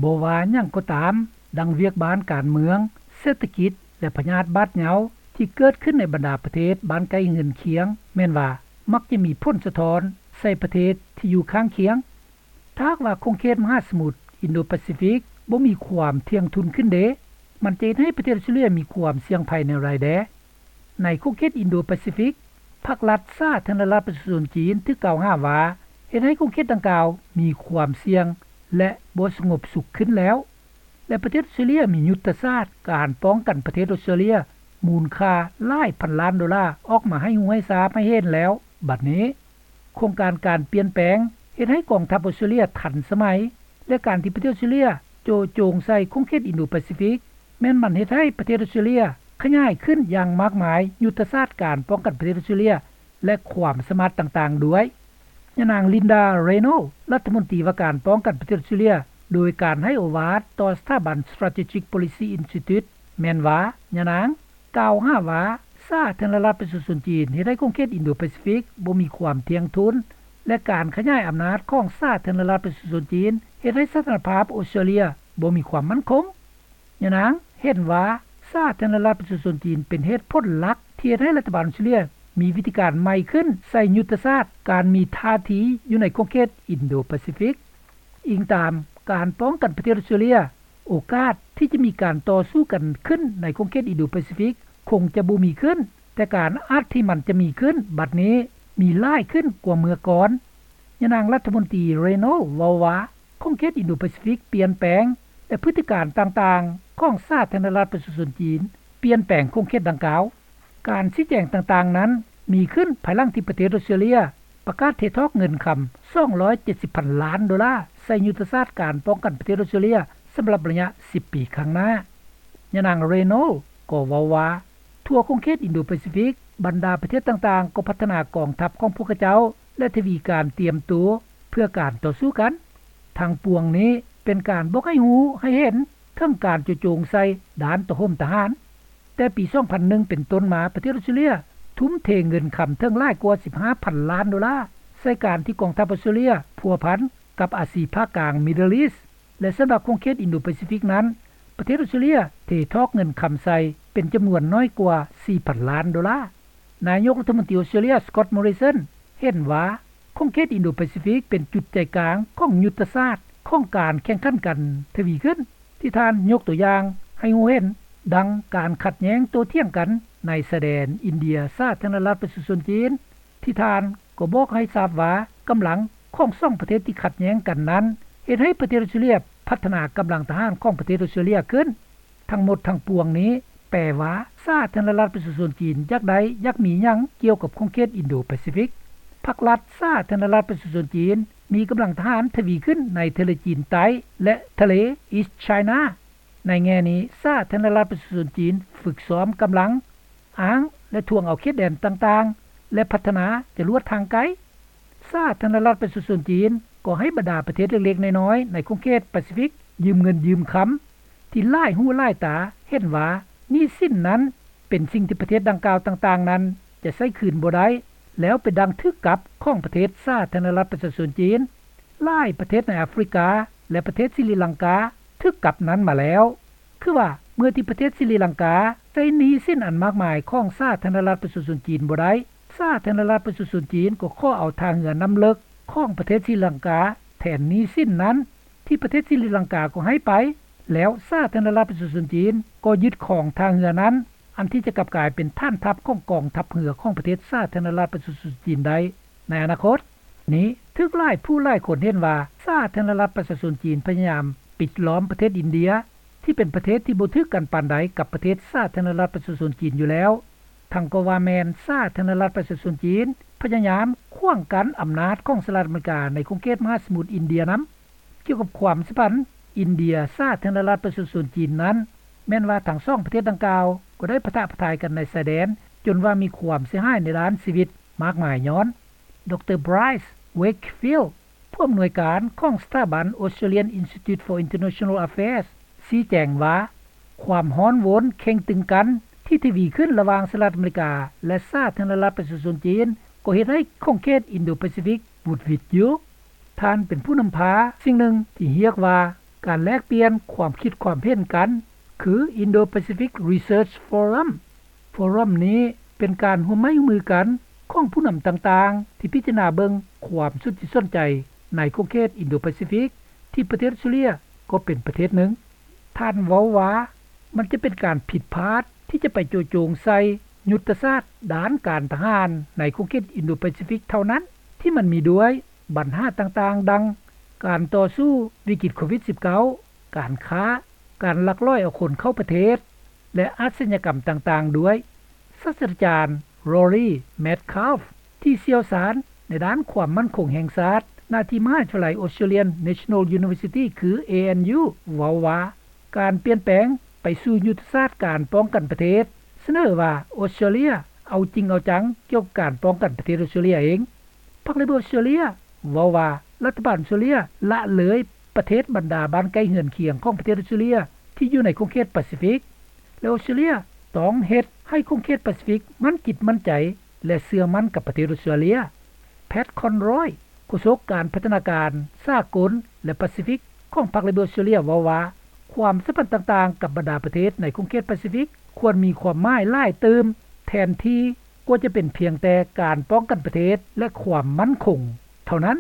ບໍ່ວ່າຫຍັງກໍຕາມ, ດັ່ງວຽກບ້ານການເມືອງ, ເສດຖະກິດ ແລະ ພະຍາດບາດເຍົາ ທີ່ເກີດຂຶ້ນໃນບັນດາປະເທດບ້ານໃກ້ເຮືອນຄຽງ ແມ່ນວ່າມັກຈະມີຜົນສະທ້ອນໃສ່ປະເທດທີ່ຢູ່ຂ້າງຄຽງ. ຖ້າຫາກວ່າຂົງເຂດມະຫາສະໝຸດອິນໂດປາຊີຟິກບໍ່ມີຄວາມທ່ຽງທຸນຂຶ້ນເດ, ມັນຈະເຮັດໃຫ້ປະເທດອອສເຕຣເລັຽມີຄວາມສ່ຽງໄພແນວໃດແດ່? ໃນຂົງເຂດອິນໂດປາຊີຟິກ, ພັກລັດສາທາລະນະລັດປະຊາຊົນຈີນຖືກກ່າວຫາວ່າເຮັດໃຫ້ຂົງເຂດດັ່ງກ່າວມີຄວາມສ່ຽງ ແລະ ບໍ່ສະຫງົບສຸກຂຶ້ນແລ້ວ ແລະ ປະເທດອອສເຕຣເລັຽມີຍຸດທະສາດການປ້ອງກັນປະເທດອອສເຕຣເລັຽມູນຄ່າຫຼາຍພັນລ້ານໂດລາອອກມາໃຫ້ຮູ້ໃຫ້ຊາບໃຫ້ເຫັນແລ້ວ. ບັດນີ້, ໂຄງການການປ່ຽນແປງເຮັດໃຫ້ກອງທັບອອສເຕຣເລັຽທັນສະໄໝ ແລະ ການທີ່ປະເທດອອສເຕຣເລັຽໂຈະໂຈງໃສ່ຂົງເຂດອິນໂດປາຊີຟິກ ແມ່ນມັນເຮັດໃຫ້ປະເທດອອສເຕຣເລັຽຂະຫຍາຍຂຶ້ນຢ່າງມາກມາຍຍຸດທະສາດການປ້ອງກັນປະເທດອອສເຕຣເລັຽ ແລະ ຄວາມສາມາດຕ່າງໆດ້ວຍ. ຍານາງ ລິນດາ ເຣໂນ ລັດຖະມົນຕີວ່າການປ້ອງກັນປະເທດອອສເຕຣເລັຽ ໂດຍການໃຫ້ໂອວາດຕໍ່ສະຖາບັນ Strategic Policy Institute ແມ່ນວ່າ ຍານາງ ກ່າວຫາວ່າ ສາທາລະນະລັດປະຊາຊົນຈີນເຮັດໃຫ້ຂົງເຂດອິນໂດປາຊີຟິກບໍ່ມີຄວາມທ່ຽງທຸນ ແລະ ການຂະຫຍາຍອຳນາດຂອງສາທາລະນະລັດປະຊາຊົນຈີນເຮັດໃຫ້ສະຖານະພາບອອສເຕຣເລັຽບໍ່ມີຄວາມໝັ້ນຄົງ. ຍານາງເຫັນວ່າ ສາທາລະນະລັດປະຊາຊົນຈີນເປັນເຫດຜົນຫຼັກທີ່ເຮັດໃຫ້ລັດຖະບານອອສເຕຣເລັຽມີວິທີການໃໝ່ຂຶ້ນໃສ່ຍຸດທະສາດການມີທ່າທີຢູ່ໃນຂົງເຂດອິນໂດປາຊີຟິກ. ອີງຕາມການປ້ອງກັນປະເທດອອສເຕຣເລັຽ, ໂອກາດທີ່ຈະມີການຕໍ່ສູ້ກັນຂຶ້ນໃນຂົງເຂດອິນໂດປາຊີຟິກຄົງຈະບໍ່ມີຂຶ້ນ, ແຕ່ການອາດທີ່ມັນຈະມີຂຶ້ນບັດນີ້ມີຫຼາຍຂຶ້ນກວ່າເມື່ອກ່ອນ. ຍານາງລັດຖະມົນຕີ ເຣໂນ ເວົ້າວ່າ ຂົງເຂດອິນໂດປາຊີຟິກປ່ຽນແປງ ແລະ ພຶດຕິການຕ່າງໆຂອງສາທາລະນະລັດປະຊາຊົນຈີນປ່ຽນແປງຂົງເຂດດັ່ງກ່າວ. ການຊີ້ແຈງຕ່າງໆນັ້ນມີຂຶ້ນພາຍຫຼັງທີ່ປະເທດອອສເຕຣເລັຽປະກາດເທຖອກເງິນຄຳສອງຮ້ອຍເຈັດສິບພັນລ້ານໂດລາໃສ່ຍຸດທະສາດການປ້ອງກັນປະເທດອອສເຕຣເລັຽສຳລັບໄລຍະສິບປີຂ້າງໜ້າ. ຍານາງ ເຣໂນ ກໍເວົ້າວ່າ ທົ່ວຂົງເຂດອິນໂດປາຊີຟິກ, ບັນດາປະເທດຕ່າງໆກໍພັດທະນາກອງທັບຂອງພວກເຂົາເຈົ້າ ແລະ ທະວີການຕຽມໂຕເພື່ອການຕໍ່ສູ້ກັນ. ທັງປວງນີ້ເປັນການບອກໃຫ້ຮູ້ໃຫ້ເຫັນເຖິງການໂຈະໂຈງໃສ່ດ້ານໂຕໂຮມທະຫານ. ແຕ່ປີສອງພັນໜຶ່ງເປັນຕົ້ນມາ, ປະເທດອອສເຕຣເລັຽທຸ່ມເທເງິນຄຳເຖິງຫຼາຍກວ່າສິບຫ້າພັນລ້ານໂດລາໃສ່ການທີ່ກອງທັບອອສເຕຣເລັຽພົວພັນກັບອາຊີພາກາງ Middle East ແລະ ສຳລັບຂົງເຂດອິນໂດປາຊີຟິກນັ້ນ, ປະເທດອອສເຕຣເລັຽເທຖອກເງິນຄຳໃສ່ເປັນຈຳນວນໜ້ອຍກວ່າສີ່ພັນລ້ານໂດລາ. ນາຍົກລັດຖະມົນຕີອອສເຕຣເລັຽ ສະກອດ ມໍຣິສັນ ເຫັນວ່າ ຂົງເຂດອິນໂດປາຊີຟິກເປັນຈຸດໃຈກາງຂອງຍຸດທະສາດຂອງການແຂ່ງຂັນກັນທະວີຂຶ້ນ ທີ່ທ່ານຍົກຕົວຢ່າງໃຫ້ຮູ້ເຫັນ ດັ່ງການຂັດແຍ່ງໂຕ້ຖຽງກັນໃນຊາຍແດນອິນເດຍສາທາລະນະລັດປະຊາຊົນຈີນ ທີ່ທ່ານກໍບອກໃຫ້ຊາບວ່າ ກຳລັງຂອງສອງປະເທດທີ່ຂັດແຍ່ງກັນນັ້ນ ເຮັດໃຫ້ປະເທດອອສເຕຣເລັຽພັດທະນາກຳລັງທະຫານຂອງປະເທດອອສເຕຣເລັຽຂຶ້ນ. ທັງໝົດທັງປວງນີ້ແປວ່າ ສາທາລະນະລັດປະຊາຊົນຈີນຢາກໄດ້ຢາກມີຫຍັງກ່ຽວກັບຂົງເຂດອິນໂດປາຊີຟິກ. ພັກລັດສາທາລະນະລັດປະຊາຊົນຈີນມີກຳລັງທະຫານທະວີຂຶ້ນໃນທະເລຈີນໃຕ້ ແລະ ທະເລ East China. ໃນແງ່ນີ້ ສາທາລະນະລັດປະຊາຊົນຈີນຝຶກຊ້ອມກຳລັງ ອ້າງ ແລະ ທວງເອົາເຂດແດນຕ່າງໆ ແລະ ພັດທະນາຈະລວດທາງໄກ. ສາທາລະນະລັດປະຊາຊົນຈີນກໍໃຫ້ບັນດາປະເທດເລັກໆນ້ອຍໆໃນຂົງເຂດປາຊີຟິກຢືມເງິນຢືມຄຳ ທີ່ຫຼາຍຫູຫຼາຍຕາເຫັນວ່າໜີ້ສິນນັ້ນເປັນສິ່ງທີ່ປະເທດດັ່ງກ່າວຕ່າງໆນັ້ນຈະໃຊ້ຄືນບໍ່ໄດ້ ແລ້ວເປັນດັ່ງຖືກກັບຂອງປະເທດສາທາລະນະລັດປະຊາຊົນຈີນ. ຫຼາຍປະເທດໃນອາຟຣິກາ ແລະ ປະເທດສີລິລັງກາຖືກກັບນັ້ນມາແລ້ວ. ຄືວ່າເມື່ອທີ່ປະເທດສີລິລັງກາໃຊ້ໜີ້ສິນອັນມາກມາຍຂອງສາທາລະນະລັດປະຊາຊົນຈີນບໍ່ໄດ້, ສາທາລະນະລັດປະຊາຊົນຈີນກໍຂໍເອົາທ່າເຮືອນ້ຳເລິກຂອງປະເທດສີລິລັງກາແທນໜີ້ສິນນັ້ນ ທີ່ປະເທດສີລິລັງກາກໍໃຫ້ໄປ, ແລ້ວສາທາລະນະລັດປະຊາຊົນຈີນກໍຍຶດຄອງທ່າເຮືອນັ້ນ ອັນທີ່ຈະກັບກາຍເປັນຖານທັບຂອງກອງທັບເຮືອຂອງປະເທດສາທາລະນະລັດປະຊາຊົນຈີນໄດ້ໃນອະນາຄົດ. ນີ້ຖືກຫຼາຍຜູ້ຫຼາຍຄົນເຫັນວ່າ ສາທາລະນະລັດປະຊາຊົນຈີນພະຍາຍາມປິດລ້ອມປະເທດອິນເດຍ ທີ່ເປັນປະເທດທີ່ບໍ່ຖືກກັນປານໃດກັບປະເທດສາທາລະນະລັດປະຊາຊົນຈີນຢູ່ແລ້ວ, ທັງກໍວ່າແມ່ນສາທາລະນະລັດປະຊາຊົນຈີນພະຍາຍາມຂວາງກັ້ນອຳນາດຂອງສະຫະລັດອາເມລິກາໃນຂົງເຂດມະຫາສະໝຸດອິນເດຍນຳ. ກ່ຽວກັບຄວາມສຳພັນອິນເດຍສາທາລະນະລັດປະຊາຊົນຈີນນັ້ນ, ແມ່ນວ່າທັງສອງປະເທດດັ່ງກ່າວກໍໄດ້ປະທະປະທາຍກັນໃນຊາຍແດນ ຈົນວ່າມີຄວາມເສຍຫາຍໃນດ້ານຊີວິດມາກມາຍຍ້ອນ. ດຣ. Bryce Wakefield ຜູ້ອຳນວຍການຂອງສະຖາບັນ Australian Institute for International Affairs ຊີ້ແຈງວ່າ ຄວາມຮ້ອນໂວນເຄັ່ງຕຶງກັນທີ່ທະວີຂຶ້ນລະຫວ່າງສະຫະລັດອາເມລິກາ ແລະ ສາທາລະນະລັດປະຊາຊົນຈີນ ກໍເຮັດໃຫ້ຂົງເຂດອິນໂດປາຊີຟິກຫວຸດຫວິດຢູ່. ທ່ານເປັນຜູ້ນຳພາສິ່ງໜຶ່ງທີ່ຮຽກວ່າ ການແລກປ່ຽນຄວາມຄິດຄວາມເຫັນກັນ ຄື Indo-Pacific Research Forum. ໂຟຣັມນີ້ເປັນການຮ່ວມໄມ້ຮ່ວມມືກັນຂອງຜູ້ນຳຕ່າງໆ ທີ່ພິຈາລະນາເບິ່ງຄວາມສົນຈິດສົນໃຈໃນຂົງເຂດ Indo-Pacific ທີ່ປະເທດອອສເຕຣເລັຽກໍເປັນປະເທດໜຶ່ງ. ທ່ານເວົ້າວ່າ ມັນຈະເປັນການຜິດພາດທີ່ຈະໄປໂຈະໂຈງໃສ່ຍຸດທະສາດດ້ານການທະຫານໃນຂົງເຂດ Indo-Pacific ເທົ່ານັ້ນ ທີ່ມັນມີດ້ວຍບັນຫາຕ່າງໆ ດັ່ງ ການຕໍ່ສູ້ວິກິດໂຄວິດ-19, ການຄ້າ, ການລັກລອຍເອົາຄົນເຂົ້າປະເທດ ແລະ ອາຊະຍາກຳຕ່າງໆ ດ້ວຍ. ສາດສະດາຈານ Rory Medcalf ທີ່ຊ່ຽວຊານໃນດ້ານຄວາມໝັ້ນຄົງແຫ່ງຊາດ ນະທີ່ມະຫາວິທະຍາໄລ Australian National University ຄື ANU ເວົ້າວ່າ ການປ່ຽນແປງໄປສູ່ຍຸດທະສາດການປ້ອງກັນປະເທດ ສະເໜີວ່າ ອອສເຕຣເລັຽເອົາຈິງເອົາຈັງກ່ຽວກັບການປ້ອງກັນປະເທດອອສເຕຣເລັຽເອງ. ພັກ Labor ອອສເຕຣເລັຽເວົ້າວ່າ ລັດຖະບານອອສເຕຣເລັຽລະເລີຍປະເທດບັນດາບ້ານໃກ້ເຮືອນຄຽງຂອງປະເທດອອສເຕຣເລັຽທີ່ຢູ່ໃນຂົງເຂດປາຊີຟິກ ແລະ ອອສເຕຣເລັຽຕ້ອງເຮັດໃຫ້ຂົງເຂດປາຊີຟິກໝັ້ນຈິດໝັ້ນໃຈ ແລະ ເຊື່ອໝັ້ນກັບປະເທດອອສເຕຣເລັຽ. Pat Conroy ໂຄສົກການພັດທະນາການສາກົນ ແລະ ປາຊີຟິກຂອງພັກ Labor ອອສເຕຣເລັຽເວົ້າວ່າ ຄວາມສຳພັນຕ່າງໆກັບບັນດາປະເທດໃນຂົງເຂດປາຊີຟິກຄວນມີຄວາມໝາຍຫຼາຍຕື່ມ ແທນທີ່ກວ່າຈະເປັນພຽງແຕ່ການປ້ອງກັນປະເທດ ແລະ ຄວາມໝັ້ນຄົງເທົ່ານັ້ນ.